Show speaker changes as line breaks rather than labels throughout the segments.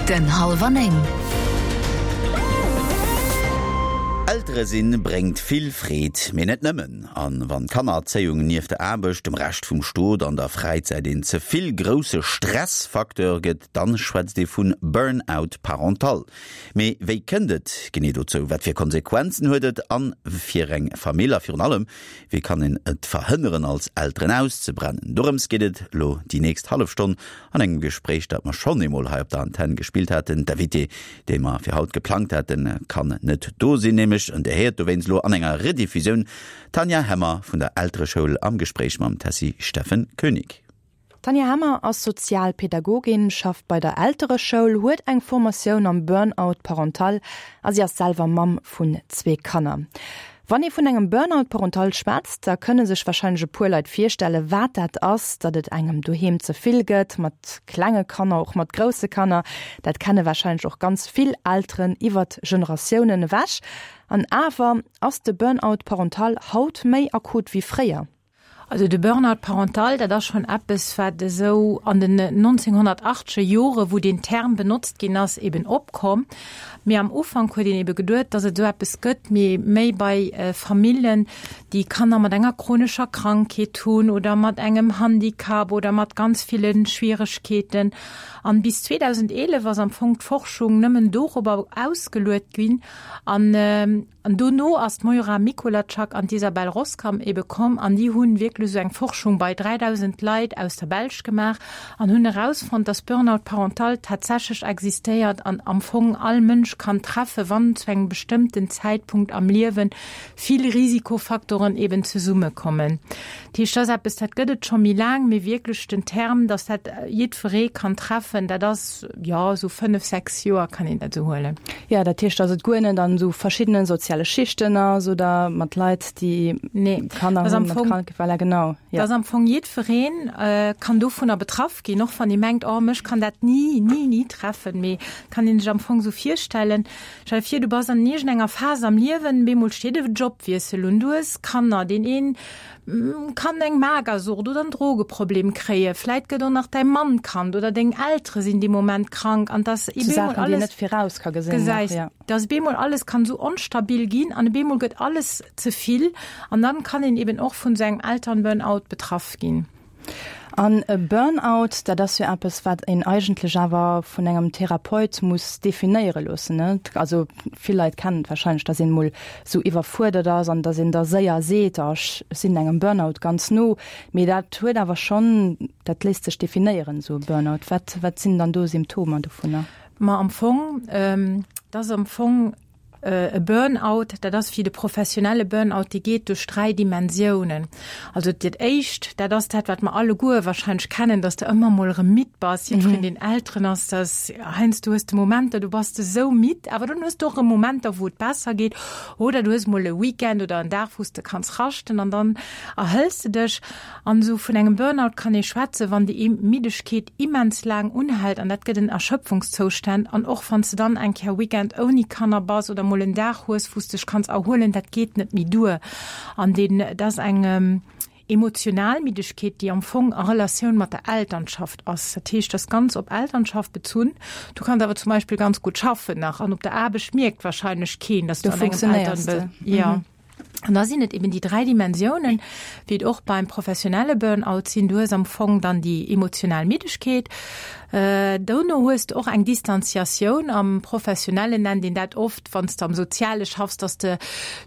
Den hallwer 9.
Eltere sinn bréngt vill Freed, mee net nëmmen. An wann d'Kannererzéiung nieft der Aarbecht, dem Rescht vum Stot an der Fräizäit een ze vill grousse Stressfacteur gëtt, dann schwätzt ee vun Burn-out parental. Mee wéi kënnt et genee dozou, wat fir Konsequenzen huet et an fir eng Famill a virun allem, Wéi kann een et verhënneren als Elteren auszebrennen? Dorëms geet et elo déi nächst hallef Stonn an engem Gespréich, dat mer schonn eemol hei op der Antenn gespillt haten. D'Invitée, déi mer fir haut geplangt haten, kann net do sinn, nämlech, an Dir héiert dowéinst elo an enger Rediffusioun d'Tanja Hemmer vun der Eltereschoul am Gespréich mam Tessy Steffen Koenig.
D'Tanja Hemmer ass Sozialpädagogin, schafft bei der Eltereschoul, huet eng Formatioun am Burn-out parental a si ass selwer Mamm vun zwee Kanner. Wann ee vun engem Burn-out parental schwätzt, da kënne sech warscheinlech e puer Leit virstelle wat dat ass, datt et engem doheem ze vill gëtt, mat klenge Kanner, och mat grousse Kanner. Dat kenne warscheinlech och ganz vill Elteren iwwert Generatiounen ewech. An awer, ass de Burn-out parental haut méi akut wéi fréier?
Also de Burn-out parental, dat ass schonn eppes, wat esou an den 1980er Jore, wou deen Term benotzt ginn ass, eben opkomm. Mee am Ufank huet een ebe geduet, datt et esou eppes gëtt, mee méi bei Famillen, déi Kanner mat enger chronescher Krankheet hunn oder mat engem Handicap oder mat ganz ville Schwieregkeeten. An bis 2011 ass am Fong d'Forschung nëmmen dorobber ausgeluet ginn. An An dono ass d'Moira Mikolajczak an d'Isabelle Roskam ebe komm an déi hunn wierklech esou eng Forschung bei 3.000 Leit aus der Belsch gemaach an hunn erausfonnt, dass Burnout parental tatsächlech existéiert an am Fong all Mënsch kann treffen, wann zu engem bestëmmten Zäitpunkt am Liewen vill Risikofaktoren eben zesummekommen. Dat heescht, dat ass eppes, dat gëtt et scho méi laang, mee wierklech den Term, dass dat jiddweree kann treffen, dat ass, jo, esou fënnef, sechs Joer kann een dat esou huelen.
Jo, dat heescht, dass et guer net an esou verschiddene soziale Schichten ass oder mat Leit, déi Kanner hunn, mat Krank, voilà, genau,
jo. Dass am Fong jiddweree kann dovunner betraff ginn, och wann ee mengt, oh, mech kann dat ni, ni, ni treffen. Mee kann ee sech am Fong esou virstellen, stell der vir, du bass an iergendenger Phas am Liewen, bemol steet e Jobwiessel un, du hues Kanner, deen een kann eng Magersucht oder en Drogeproblem kréien, vläit gëtt och nach däi Mann krank oder deng Eltere sinn dee Moment krank an dass
Sou Saachen, déi een net viraus ka gesinn.
Gesäis, dass op eemol alles kann esou onstabil ginn an op eemol gëtt alles ze vill an dann kann een eben och vun esou engem Elternburnout betraff ginn.
An e Burnout, dat ass jo eppes, wat een eigentlech awer vun engem Therapeut muss definéiere loossen, ne? Also vill Leit kennen et warscheinlech, dass een emol esou iwwerfuerdert ass an dass een da séier seet, oh ech sinn engem Burnout ganz no. Mee dat huet awer schonn, dat léisst sech definéieren, esou e Burnout. Wat, wat sinn dann do Symptomer dovunner?
Ma am Fong, dat ass am Fong E Burnout, dat ass wéi de professionelle Burnout, dee geet duerch 3 Dimensiounen. Also dat éischt, dat ass dat, wat mer alleguer wahrscheinlech kennen, dass de ëmmer mol erëm midd bass. Jiddwereen, deen Elteren ass, dass heiansdo hues de Momenter, do bass de esou midd, awer dann hues de och erëm Momenter, wou et besser geet. Oder du hues mol e Weekend oder en Dag, wou s de kanns raschten an dann erhëls de dech. An esou vun engem Burnout kann ee schwätzen, wann déi Middegkeet immens laang unhält, an dat gëtt en Erschöpfungszoustand. An och wann s de dann eng Kéier Weekend ouni Kanner bass oder mol en Dag hues, wou s dech kanns erhuelen, dat geet net méi duer. An deen, dat ass eng emotional Middegkeet, déi am Fong a Relatioun mat der Elternschaft ass. Dat heescht, dat ass ganz op Elternschaft bezunn. Du kanns awer zum Beispill ganz gutt schaffen nach an op der Aarbecht mierkt wahrscheinlech keen, dass du an engem Elternbe. Jo. An da sinn et eben déi 3 Dimensiounen, wéi et och beim professionelle Burnout sinn. Du hues am Fong dann déi emotional Middegkeet. Dono hues de och eng Distanziatioun. Am Professionellen nennt een dat oft, wann s de am Soziale schaffs, dass de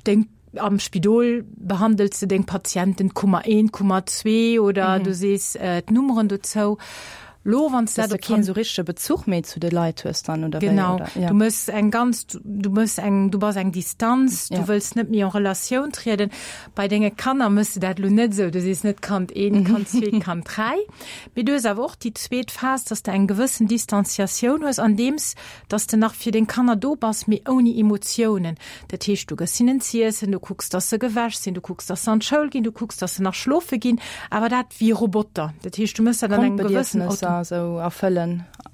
deng, am Spidol behandels de deng Patienten Kummer 1, Kummer 2 oder du sees d'Nummeren dozou.
Lo wann s dat op keen sou richtege Bezuch méi zu de Leit hues dann oder
wéi? Genau, oder? Ja. Du mëss eng ganz, du mëss eng, du bass eng Distanz, du ja. wëlls net méi en Relatioun trieden. Bei denge Kanner mëss du dat lo net sou, du sees net Kand 1, Kand 2, Kand 3. Mee du hues awer och déi zweet Phas, dass de eng gewëssen Distanciatioun hues, andeems dass de nach fir deng Kanner do bass, mee ouni Emotiounen. Dat heescht, du gëss hinnen z'iessen, du kucks, dass se gewäsch sinn, du kucks, dass se an d'Schoul ginn, du kucks, dass se nach schlofe ginn, awer dat wéi Roboter. Dat heescht, du mëss dat an engem gewëssen
Grundbedierfnesser esou erfëllen.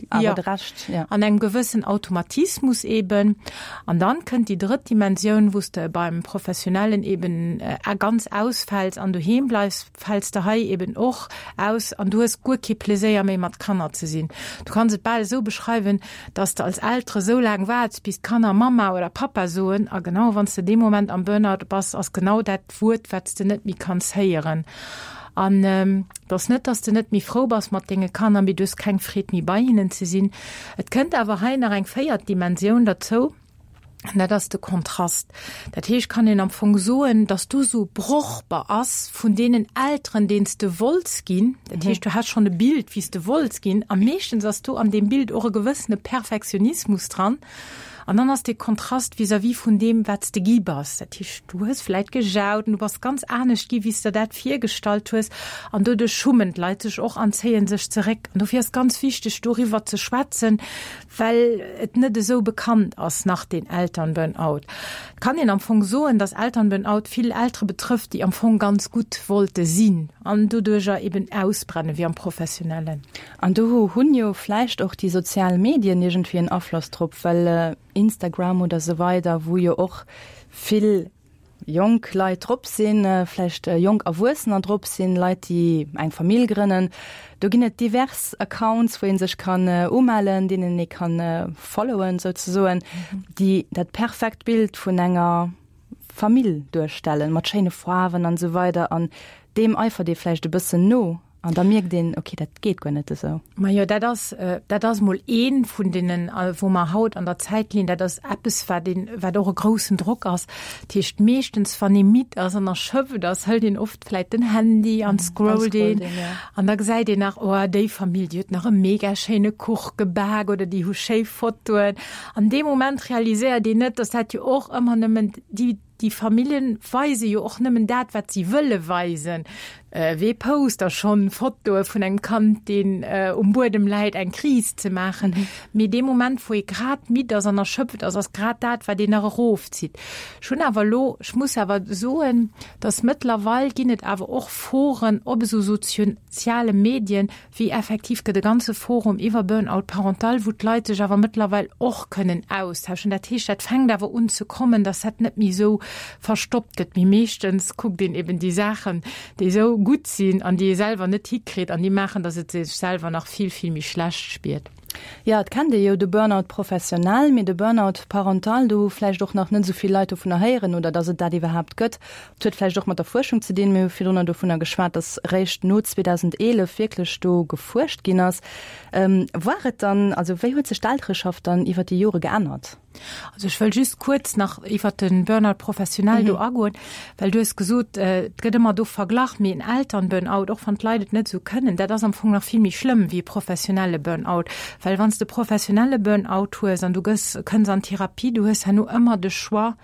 Awer de Rescht,
ja. An engem gewëssen Automatismus eben. An dann kënnt déi drëtt Dimensioun, wou s de beim Professionellen eben ganz ausfäls an doheem bleifs, fäls de hei eben och aus an du hues guer kee Pleséier méi mat Kanner ze sinn. Du kanns et bal esou beschreiwen, dass de als Eltere sou laang waarts, bis d'Kanner Mamma oder Pappa soen a genau wann s de dee Moment am Burnout bass, ass genau dat d'Wuert, wat s de net méi kanns héieren. An et ass net, dass de net méi frou bass mat denge Kanner, mee du hues keng Freed méi bei hinnen ze sinn. Et kënnt awer hei nach eng véiert Dimensioun derzou, an dat ass de Kontrast. Dat heescht, kann een am Fong soen, dass du esou brochbar ass vun deenen Elteren, deen s de wollts ginn. Dat heescht, du has schonn e Bild, wéi s de wollts ginn, a meeschtens ass do an deem Bild och e gewëssene Perfektionismus dran. An dann ass dee Kontrast vis-à-vis vun deem, wat s de gi bass. Dat heescht, du hues vläit gejaut an du bass ganz anescht gi wéi s der dat virgestallt hues. An doduerch schummen d'Leit sech och an zéie sech zeréck. An dofir ass ganz wichteg, doriwwer ze schwätzen, well et net esou bekannt ass nach, deen Elternburnout. Et kann een am Fong soen, dass Elternburnout vill Eltere betrëfft, déi am Fong ganz gutt wollte sinn an doduercher eben ausbrenne wéi am Professionellen.
An do hunn jo vläicht och déi sozial Medien iergendwéi en Afloss drop, well Instagram oder esou weider, wou jo och vill jonk Leit drop sinn, vläicht jonk Erwuessener drop sinn, Leit, déi eng Famill grënnen. Do ginn et divers Accounts, wou ee sech kann umellen, deenen ee kann followen souzesoen, déi dat perfekt Bild vun enger Famill duerstellen, mat schéine Faarwen an esou weider. An deem eifert ee vläicht e bëssen no. An da mierkt een, okay, dat geet guer net esou.
Majo, dat ass, dat ass mol ee vun deenen, wou mer haut an der Zäit linn. Dat ass eppes, wat een, wat och e groussen Drock ass. Dat heescht, meeschtens, wann ee midd ass an erschöpft ass, hëlt een oft vläicht den Handy an scrollt een. An da gesäit een nach, oh, déi Famill, déi huet nach e mega schéine Kuch gebak oder déi hu schéi Fotoen. An dee Moment realiséiert een net, dass dat jo och ëmmer nëmmen déi, Déi Familljen weise jo och nëmmen dat, wat si wëlle weisen. Wee post da schonn Fotoe vun engem Kand, deen um Buedem läit, eng Kris ze maachen? Mee dee Moment, wou ee grad midd ass an erschöpft ass, ass grad dat, wat een nach erofzitt. Ech hunn awer elo, ech muss awer soen, dass mëttlerweil ginn et awer och Foren op esou soziale Medien, wéi effektiv gëtt e ganze Forum iwwer Burnout parental, wou d'Leit sech awer mëttlerweil och kënnen austauschen. Dat heescht, dat fänkt awer un ze kommen, dass dat net méi esou verstoppt gëtt. Mee meeschtens kuckt een eben déi Saachen, déi esou gutt sinn an déi ee selwer net hikritt an déi maachen, dass et sech selwer nach vill, vill méi schlecht spiert.
Jo, et kennt ee jo de Burnout professionell, mee de Burnout parental, do hu vläicht och nach net esou vill Leit dovunner héieren oder dass et dat iwwerhaapt gëtt. Et huet vläicht och mat der Fuerschung ze dinn. Mir hu virdrunner dovunner geschwat, dass eréischt no 2011 wierklech do gefuerscht ginn ass. War et dann, also wéi huet sech d'Eltereschaft dann iwwer déi Jore geännert?
Also ech wëll just kuerz nach iwwert de Burnout professionnel do agoen, well du hues gesot, et gëtt ëmmer do verglach, mee en Elternburnout, och wann d'Leit et net esou kënnen, dat ass am Fong nach vill méi schlëmm wéi e professionelle Burnout. Well wann s de professionelle Burnout hues an du gëss, kënns an Therapie, du hues herno ëmmer de Choix,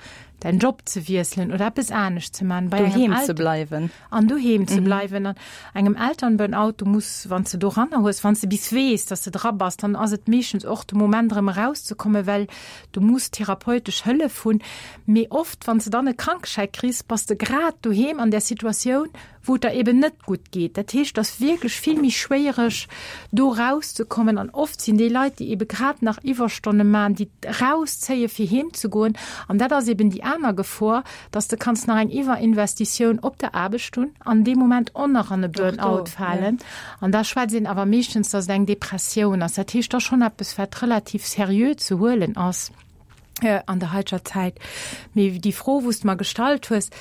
däin Job ze wiesselen oder eppes anescht ze man.
Bei doheem ze bleiwen.
An doheem ze bleiwen. An engem Elternburnout, du muss, wann s de doranner hues, wann s de bis weess, dass de dra bass, dann ass et meeschtens och de Moment erëm erauszekommen, well du muss therapeutesch Hëllef hunn. Mee oft, wann s de dann e Krankeschäi kriss, bass de grad doheem an där Situatioun, wou et der eben net gutt geet. Dat heescht, et ass wierklech vill méi schwéiereg, do erauszekommen. An oft sinn déi Leit, déi ebe grad nach Iwwerstonne maachen, déi erauszéie fir heem ze goen. An dat ass eben déi aner Gefor, dass de kanns nach eng Iwwerinvestitioun op der Aarbecht hunn an dee Moment och nach an e Burnout falen. An da schwätzt een awer meeschtens, dass et eng Depressioun ass. Dat heescht, et ass schonn eppes, wat relativ seriö ze huelen ass. An der heiteger Zäit. Mee déi Fro, wou s de mer gestallt hues,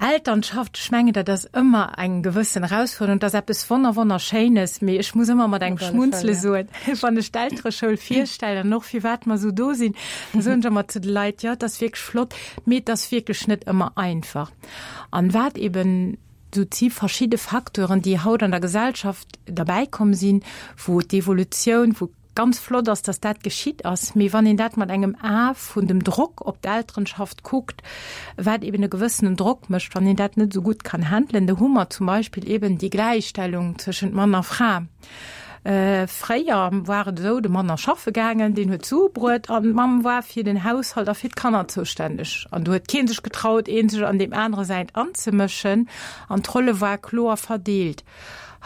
Elternschaft, ech mengen, dat ass ëmmer eng gewëssen Erausfuerderung. Dat ass eppes wonner wonnerschéines, mee ech muss ëmmer mat engem Schmunzele soen, wann ech d'Eltereschoul virstellen an och firwat mer esou do sinn, da soen ech ëmmer zu de Leit, jo, et ass wierklech flott, mee et ass wierklech net ëmmer einfach. An wat eben, et si verschidde Facteuren, déi haut an der Gesellschaft derbäikomm sinn, wou d'Evolutioun, wou Ganz flott ass, dass dat geschitt ass, mee wann een dat mat engem A vun dem Drock op d'Elterenschaft kuckt, wat eben e gewëssenen Drock mécht, wann een dat net esou gutt kann handelen, do hu mer zum Beispill eben déi Gläichstellung tëschent Mann a Fra. Fréier war et esou, de Mann ass schaffe gaangen, deen huet d'Sue bruet an d'Mamm war fir den Haushalt a fir d'Kanner zoustänneg. An do huet kee sech getraut, ee sech an deem anere säint anzemëschen an d'Rolle war kloer verdeelt.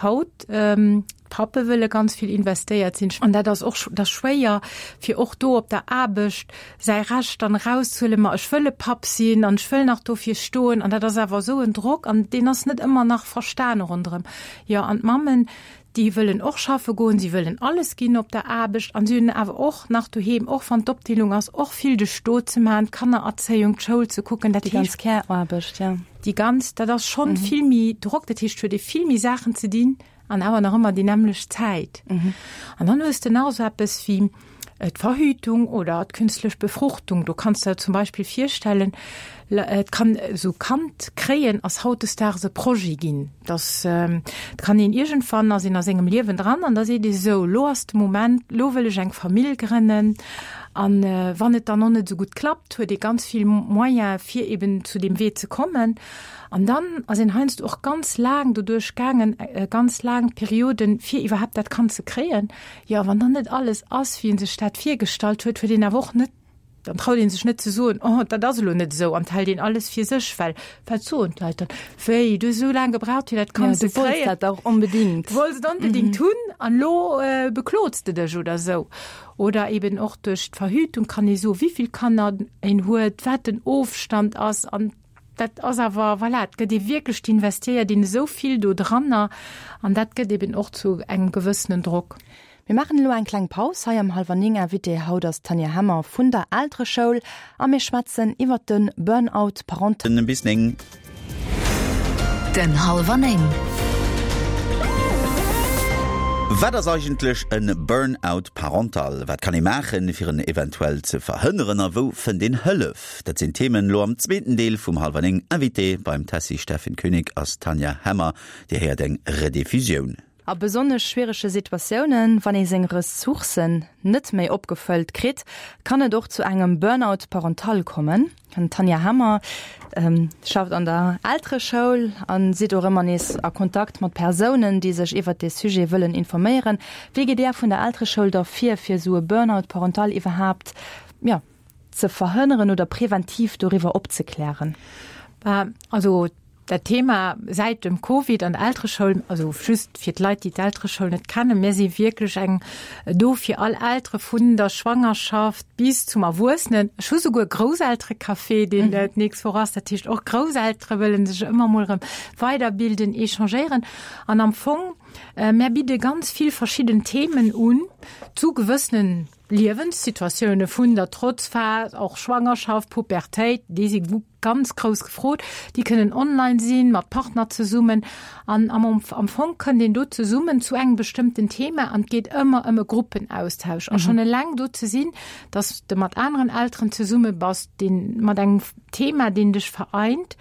Haut, d'Pappe wëlle ganz vill investéiert sinn an dat ass och dat ass schwéier, fir och do op der Aarbecht säi Recht dann erauszehuelen, ma ech wëll e Papp sinn an ech wëll nach dofir stoen an dat ass awer esou en Drock an deen ass net ëmmer nach verstane ronderëm. Jo, an d'Mammen, déi wëllen och schaffe goen, si wëllen alles ginn op der Aarbecht an si hunn awer och nach doheem, och wann d'Opdeelung ass, och vill de Stot ze maachen, d'Kannererzéiung, d'Schoul ze kucken, dat
Déi ganz Care-Aarbecht, jo.
Déi ganz, dat ass schonn vill méi Drock, dat heescht, huet ee vill méi Saachen ze dinn an awer nach ëmmer déi nämmlecht Zäit. An dann hues de nach esou eppes wéi d'Verhütung oder d'künstlech Befruchtung. Do kanns de der zum Beispill virstellen, et kann esou Kand kréien ass hautdesdaags e Projet ginn, dass et kann een iergendwann ass een a sengem Liewen dran an da seet ee sou, lo ass de Moment, lo wëll ech eng Famill grënnen. An wann et dann och net esou gutt klappt, huet ee ganz vill Moyen fir eben zu deem Wee ze kommen. An dann ass een heiansdo och ganz laang doduerch gaangen, ganz laang Perioden, fir iwwerhaapt dat Kand ze kréien. Jo, wann dann net alles ass, wéi ee sech dat virgestallt huet, huet een awer och net, dann traut ee sech net ze soen, oh, dat ass elo net esou, an hält een alles fir sech, well wat soen d'Leit dann? Wéi, du hues esou laang gebraucht, fir dat Kand ze kréien.
Ja, du wollts dat och onbedingt.
Du wollts et onbedingt hunn an elo beklots de dech oder esou. Oder eben och duerch d'Verhütung kann ee soen, wéi vill Kanner een huet, wat den Ofstand ass an dat ass awer, voilà, et gëtt ee wierklech, d'investiéiert een esou vill do dranner an dat gëtt eben och zu engem gewëssenen Drock.
Mir maachen elo eng kleng Paus hei am Hallwer 9. Invitée haut ass d'Tanja Hemmer vun der Eltereschoul a mir schwätzen iwwert de Burnout parental.
Bis 9.
Den Hallwer 9.
Wat ass eigentlech e Burnout parental? Wat kann ee maachen, fir en eventuell ze verhënneren a wou fënnt een Hëllef? Dat sinn d'Themen elo am zweeten Deel vum Hallwer 9. Invitée beim Tessy Steffen Koenig ass d'Tanja Hemmer. Dir héiert eng Rediffusioun.
A besonnesch schwierege Situatiounen, wann ee seng Ressourcen net méi opgefëllt kritt, kann et och zu engem Burnout parental kommen. D'Tanja Hemmer schafft an der Eltereschoul a sidd och ëmmer nees a Kontakt mat Persounen, déi sech iwwert dee Sujet wëllen informéieren. Wéi gitt Där vun der Eltereschoul da vir, fir esou e Burnout parental iwwerhaapt, jo, ze verhënneren oder preventiv doriwwer opzeklären?
Also Dat Thema säit dem Covid an der Eltereschoul, also just fir d'Leit, déi d'Eltereschoul net kennen, mir si wierklech eng do fir all Eltere vun der Schwangerschaft bis zum Erwuessenen. Ech hu souguer e Grousselterecafé, deen d'nächst Woch ass. Dat heescht, och Grousseltere wëlle sech ëmmer mol erëm weiderbilden, échangéieren. An am Fong, mär bidde ganz vill verschidden Themen un zu gewëssenen Liewenssituatioune vun der Trotzphas, och Schwangerschaft, Pubertéit, déi si Ganz grouss gefrot. Déi kënnen online sinn, mat Partner zesummen. An am am Fong kënnt een do zesummen zu engem bestëmmten Thema an et geet ëmmer ëm e Gruppenaustausch. A schonn eleng do ze sinn, datt s de mat aneren Elteren zesumme bass, deen mat engem Thema, deen dech vereint,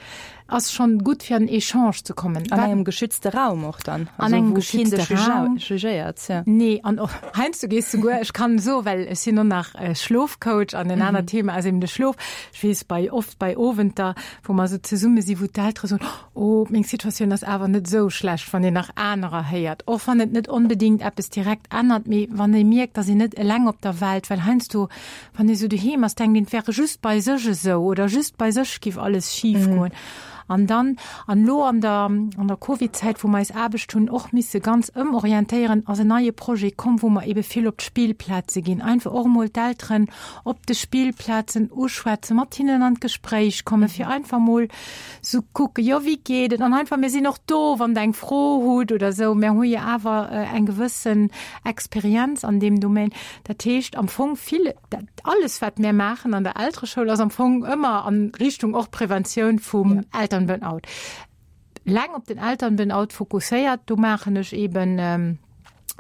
ass schonn gutt fir an en Echange ze kommen.
An engem geschützte Raum och dann.
An engem geschützte Raum.
Jugéiert,
ja. Nee, an och heiansdo gees de souguer, ech kann soen, well ech sinn och nach Schlofcoach an en anert Thema ass eben de Schlof. Ech weess bei oft bei Owenter, wou mer esou zesumme si, wou d'Eltere soen, Oh, meng Situatioun ass awer net esou schlecht, wann een nach anerer héiert. Och wann et net onbedéngt eppes direkt ännert, mee wann ee mierkt, dass een net eleng op der Welt, well heiansdo, wann ee sou doheem ass, denkt een, et wäre just bei sech esou oder just bei sech giff alles schif goen. An dann, an elo an der, an der Covid-Zäit, wou mer eis Aarbecht hunn och misse ganz ëmorientéieren, ass en neie Projet komm, wou mer ebe vill op d'Spillplaze ginn, einfach och emol d'Elteren op de Spillplazen uschwätzen, mat hinnen an d'Gespréich kommen, fir einfach mol sou kucken, jo wéi geet et an einfach mir sinn och do, wann der eng Fro hutt oder sou. Mir hu jo awer eng gewëssen Experienz an deem Domaine. Dat heescht am Fong vill, dat alles wat mir maachen an der Eltereschoul ass am Fong ëmmer an Richtung och Preventioun vum Elternburnout. Leng op den Elternburnout fokusséiert, do maachen ech eben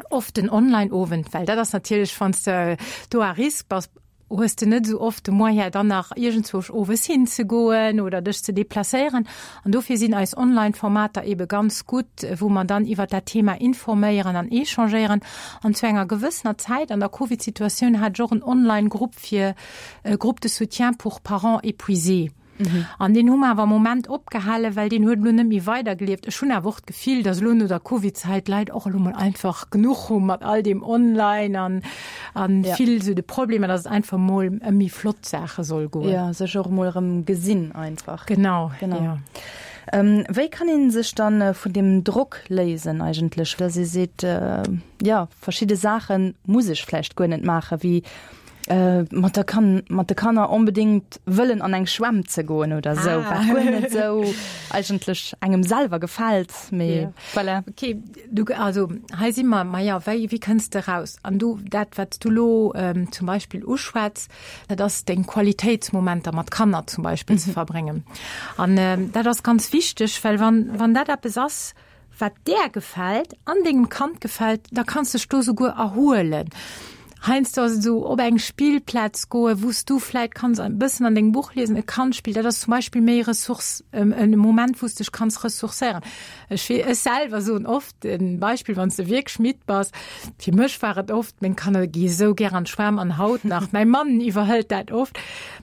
oft den Online-Owend, well dat ass natierlech, wann s de do à risque bass, hues de net esou oft de Moyen dann nach iergendzwousch owes hinzegoen oder dech ze deplacéieren. An dofir sinn eis Online-Formater ebe ganz gutt, wou mer dann iwwert dat Thema informéieren an échangéieren. An zu enger gewëssener Zäit an der Covid-Situatioun hat ech och en Online-Grupp fir Groupe de soutien pour parents épuisés. An deen hu mer awer am Moment opgehalen, well deen huet elo net méi weidergelieft. Ech hunn awer och d'Gefill, datt elo no der Covid-Zäit d'Leit och elo mol einfach genuch hu mat all deem Online an an vill esou de Problemer, datt et einfach mol ëm méi flott Saache soll goen.
Jo, sech och emol erëm gesinn einfach.
Genau, genau.
Jo. Wéi kann ee sech dann vun deem Drock léisen eigentlech, dass ee seet, jo verschidde Saache muss ech vläicht guer net maachen, wéi mat der Kan mat de Kanner onbedéngt wëllen an eng Schwämm ze goen oder esou, wat guer net esou eigentlech engem selwer gefält, mee voilà.
Okay, du, also hei si mer, maja, wéi, wéi kënns de raus? An du, dat wat s du elo zum Beispill uschwätz, dat ass deng Qualitéitsmomenter mat Kanner zum Beispill ze verbréngen. An dat ass ganz wichteg, well wann, wann dat eppes ass, wat där gefält an dengem Kand gefält, da kanns dech do souguer erhuelen. Heiansdo ass et esou, op eng Spillplaz goen, wou s du vläit kanns e bëssen an dengem Buch liesen, e Kand spillt, dat ass zum Beispill méi Ressource, e Moment, wou s dech kanns ressourcéieren. Ech wee, ech selwer soen oft e Beispill, wann s de wierklech midd bass, fir mech war et oft, meng Kanner gi esou gär an d'Schwämm an haut nach, mäi Mann iwwerhëlt dat oft,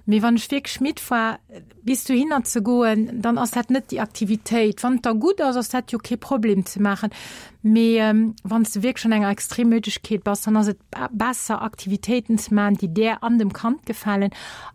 mee wann ech wierklech midd war, Bis dohinner ze goen, dann ass dat net déi Aktivitéit. Wann et der gutt ass, ass dat jo kee Problem ze maachen. Mee wann s de wierklech an enger Extremmüdegkeet bass, dann ass et besser, Aktivitéiten ze maachen, déi där an dem Kand gefalen.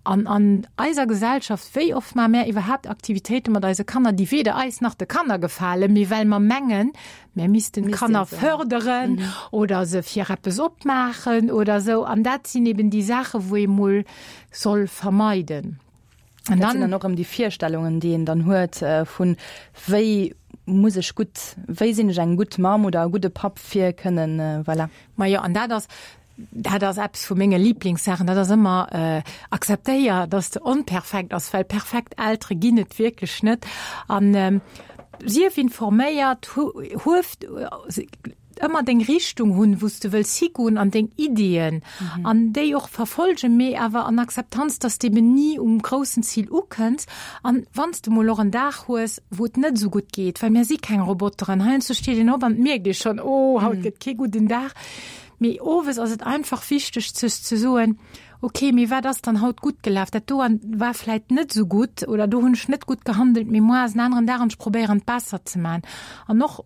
An an eiser Gesellschaft, wéi oft maache mär iwwerhaapt Aktivitéite mat eise Kanner, déi weder eis nach de Kanner gefalen, mee well mer mengen, mär missten d'Kanner fërderen oder se fir eppes opmaachen oder esou. An dat sinn eben déi Saachen, wou ee mol soll vermeiden.
An dann, dann och ëm déi Virstellungen, déi een dann huet vun wéi muss ech gutt, wéi sinn ech eng gutt Mamm oder e gudde Papp fir kënnen, voilà.
Majo, an dat ass, dat ass eppes vu menge Liblingssaachen, dat ass ëmmer akzeptéier, dass de onperfekt ass, well perfekt Eltere ginn et wierklech net. An sief informéiert, huef ëmmer deng Richtung hunn, wou s de wëlls higoen an deng Ideeën an déi och verfolgen, mee awer an Akzeptanz, dass de eben ni um groussen Zil ukënns an wann s de mol och en Dag hues, wou et net esou gutt geet, well mir si keng Roboteren, heiansdo steet een op an et mierkt ee schonn, oh haut gëtt kee gudden Dag, mee owes ass et einfach wichteg sech ze soen, ok, mee wat ass dann haut gutt gelaf, dat do war vläit net esou gutt oder do hunn ech net gutt gehandelt, mee muar ass en aneren Dag an ech probéieren et besser ze maachen an och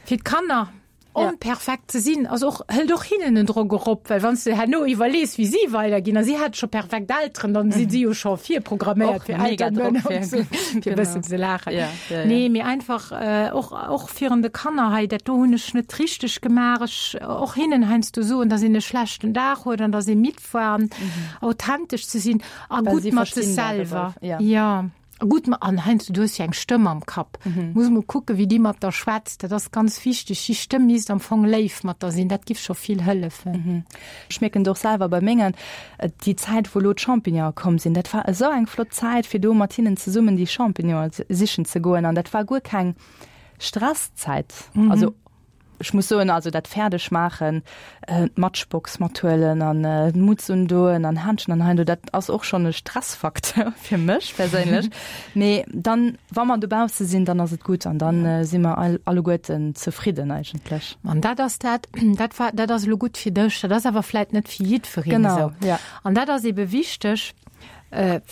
Fir d'Kanner onperfekt ze sinn, ass och, hëlt och hinnen en Drock erop, well wann s de herno iwwerlees, wéi si weiderginn, a si hate scho perfekt Elteren, dann si si jo scho virprogramméiert fir Elteren ze sinn, fir e bëssen ze laachen. Nee, mee einfach och, och virun de Kanner hei, dat do hunn ech net richteg gemaach, ech och hinnen heiansdo soen, dass een e schlechten Dag huet an dass ee midd war, an authentesch ze sinn a gutt mat sech selwer. Jo. Gutt, ma an heiansdo, du hues jo eng Stëmm am Kapp. Muss mol kucken, wéi déi mat der schwätzt. Dat ass ganz wichteg. Déi Stëmm misst am Fong léif mat der sinn. Dat giff scho vill hëllefen.
Ech mierken et och selwer bei mengen, déi Zäit, wou elo d'Champignonen komm sinn, dat war esou eng flott Zäit, fir do mat hinnen zesummen déi Champignonen sichen ze goen. An dat war guer keng Stresszäit. Also Ech muss soen, also dat fäerdeg maachen, d'Matchbox mathuelen an d'Mutz undoen an Händschen an heindo, dat ass och schonn e Stressfacteur fir mech perséinlech. Mee dann, wa mer dobausse sinn, dann ass et gutt an dann si mer alleguerten zefridden eigentlech.
An dat ass dat, dat war, dat ass elo gutt fir dech, dat ass awer vläit net fir jiddwereen esou.
Genau, ja.
An dat ass ebe wichteg,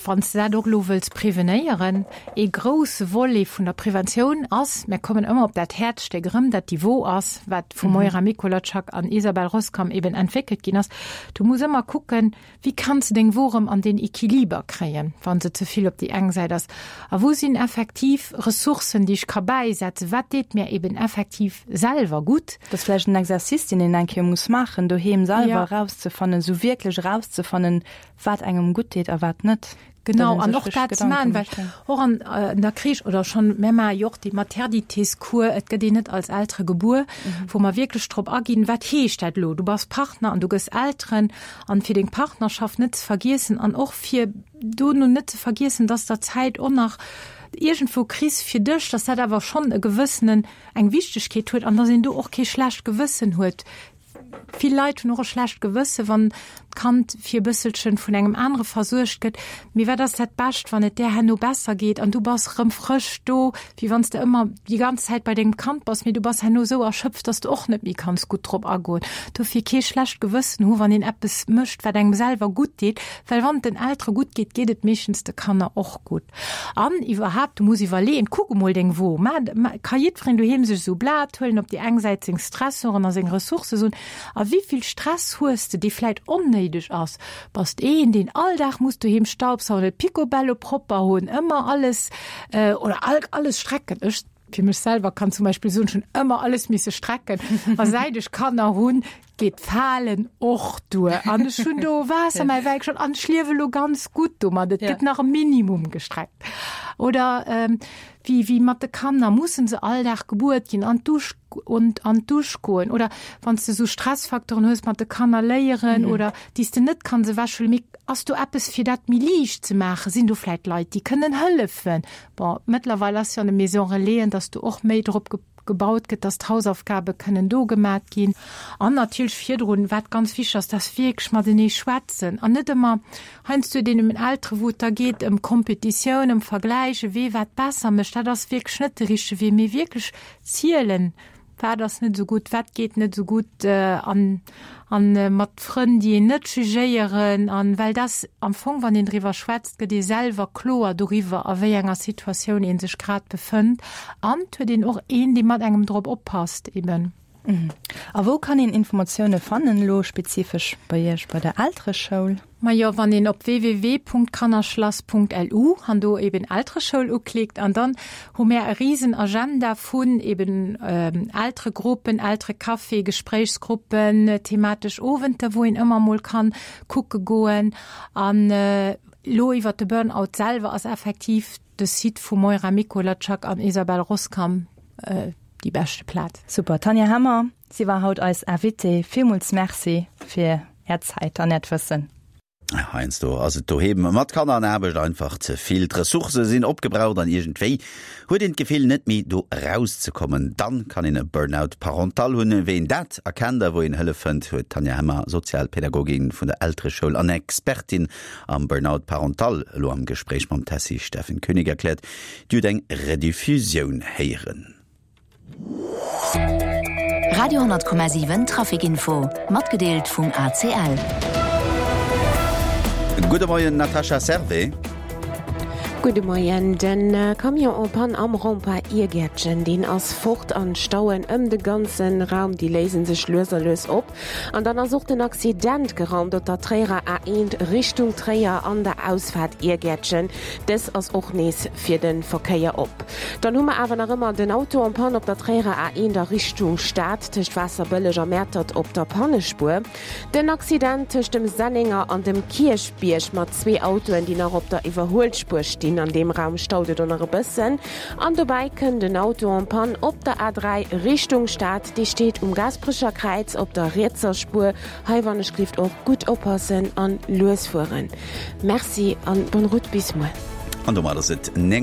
Wann s de dat och elo wëlls prevenéieren, ee grousse Volet vun der Preventioun ass, mir kommen ëmmer op dat Häerzstéck erëm, dat déi Wo ass, wat vu Moira Mikolajczak an Isabel Roskam eben entwéckelt ginn ass. Du muss ëmmer kucken, wéi kanns de deng Wo erëm an den Equiliber kréien, wa se ze vill op déi eng Säit ass. A wou sinn effektiv Ressourcen, déi ech ka bäisetzen? Wat deet mär eben effektiv selwer gutt?
Dat ass vläicht en Exercice, deen een eng Kéier muss maachen doheem selwer, erauszefannen, esou wierklech erauszefannen, Wat engem gutt deet a wat net.
Genau, an och dat ze maachen, well och an der Crèche oder schonn, mär maache jo och déi Maternitéscours, et gëtt een net als Eltere gebuer, wou mer wierklech drop aginn, wat heescht dat elo, du bass Partner an du gëss Elteren, an fir deng Partnerschaft net ze vergiessen an och fir dono net ze vergiessen, dass der Zäit och nach iergendwou kriss fir dech, dass dat awer schonn e gewëssenen, eng Wichtegkeet huet an dass een do och kee schlecht Gewëssen huet. Vill Leit hunn och e schlecht Gewësse wann d'Kand fir e bësselchen vun engem anere versuergt gëtt. Mee wat ass dat Bescht, wann et där herno besser geet an du bass rëm frësch do, wéi wann s de ëmmer déi ganz Zäit bei dengem Kand bass, mee du bass herno esou erschöpft, dass de och net méi kanns gutt drop agoen. Dofir kee schlecht Gewëssen hu wann een eppes mécht, wat engem selwer gutt deet, well wann et den Eltere gutt geet, geet et meeschtens de Kanner och gutt. An iwwerhaapt, du muss iwwerleeën, kuck emol deng Wo. Ma, ma, ka jiddwereen doheem sech esou e Blat huelen, op déi eng Säit seng Stressoren a seng Ressourcë soen. A wéi vill Stress hues de, dee vläit onnéideg ass? Bass de een, deen all Dag muss doheem staubsaugen, et picobello propper hunn, ëmmer alles oder alles strecken? Ech fir mech selwer kann zum Beispill soen, ech hunn ëmmer alles misse strecken. A säit ech Kanner hunn, geet d'Falen och duer. An ech hunn do Waasser mäi Wäi geschott an ech liewe lo ganz gutt domat. Et gëtt nach e Minimum gestreckt. Oder wéi, wéi mat de Kanner, mussen se all Dag gebuert ginn, an d'Dusch und an d'Dusch goen? Oder wann s de esou Stressfaktoren hues mat de Kanner léieren oder déi s de net kanns ewechhuelen, mee ass do eppes fir dat méi liicht ze maachen? Sinn do vläit Leit, déi kënnen hëllefen? Bon, mëttlerweil ass jo an de Maison Relaisen, dass do och méi drop gebaut gëtt, dass d'Hausaufgabe kënnen do gemat ginn. An natierlech virdrun, wat ganz wichteg ass, dass wierklech matenee schwätzen an net ëmmer heiansdo deenen Eltere wou et da geet ëm Kompetitioun, ëm Vergläiche, wee wat besser mécht. Dat ass wierklech net de richtege Wee, mee wierklech zielen, wat ass net esou gutt, wat geet net esou gutt an an mat Frënn, déi een net jugéieren an well dass am Fong, wann een driwwer schwätzt, gëtt ee selwer kloer doriwwer, a wéi enger Situatioun ee sech grad befënnt an et huet een och een, dee mat engem drop oppasst eben.
A wou kann een Informatioune fannen, elo spezifesch bei Iech bei der Eltereschoul?
Majo, wann een op www.kannerschlass.lu an do eben Eltereschoul uklickt an dann hu mär e riesen Agenda vun eben Elteregruppen, Elterecafé, Gespréichsgruppen, thematesch Owenter, wou een ëmmer mol kann kucke goen. An elo iwwert de Burnout selwer ass effektiv de Site vu Moira Mikolajczak an Isabelle Roskam déi beschte Plaz.
Super, Tanja Hemmer, si war haut eis Invitée. Villmools Merci fir Är Zäit an Äert Wëssen.
Heiansdo ass et doheem mat Kanner an Aarbecht einfach ze vill. D'Ressourcë sinn opgebraucht an iergendwéi huet een d'Gefill, net méi do erauszekommen. Dann kann een e Burnout parental hunn. Wéi een dat erkennt a wou een Hëllef fënnt, huet d'Tanja Hemmer, Sozialpädagogin vun der Eltereschoul an Expertin am Burnout parental, elo am Gespréich mam Tessy Steffen Koenig erkläert. Dir hutt eng Rediffusioun héieren.
Radio 10,7 Traficinfo, matgedeelt vum ACL.
Gudde Moien Natascha Servais.
Gudde Moien. Den Camion en panne am Rond-point Iergäertchen, deen ass fort an d'Stauen ëm de ganze Raum, déi léisen sech lues a lues op. An dann ass och den Accident geraumt op der Tréierer A1 Richtung Tréier an der Ausfaart Iergäertchen. Dës ass och nees fir de Verkéier op. Dann hu mer awer nach ëmmer den Auto en panne op der Tréierer A1 a Richtung Stad tëscht Waasserbëlleg a Mäertert op der Pannespuer. Den Accident tëscht dem Sennenger an dem Kierchbierg mat zwee Autoen, déi nach op der Iwwerhuelspuer stinn. An deem Raum staut et och nach e bëssen. An dobäi kënnt en Auto en panne op der A3 Richtung Stad. Dee steet um Gaasperecher Kräiz op der rietser Spuer. Hei wann ech glift och gutt oppassen an lues fueren. Merci an bonne route bis muer.
An domat ass et 9.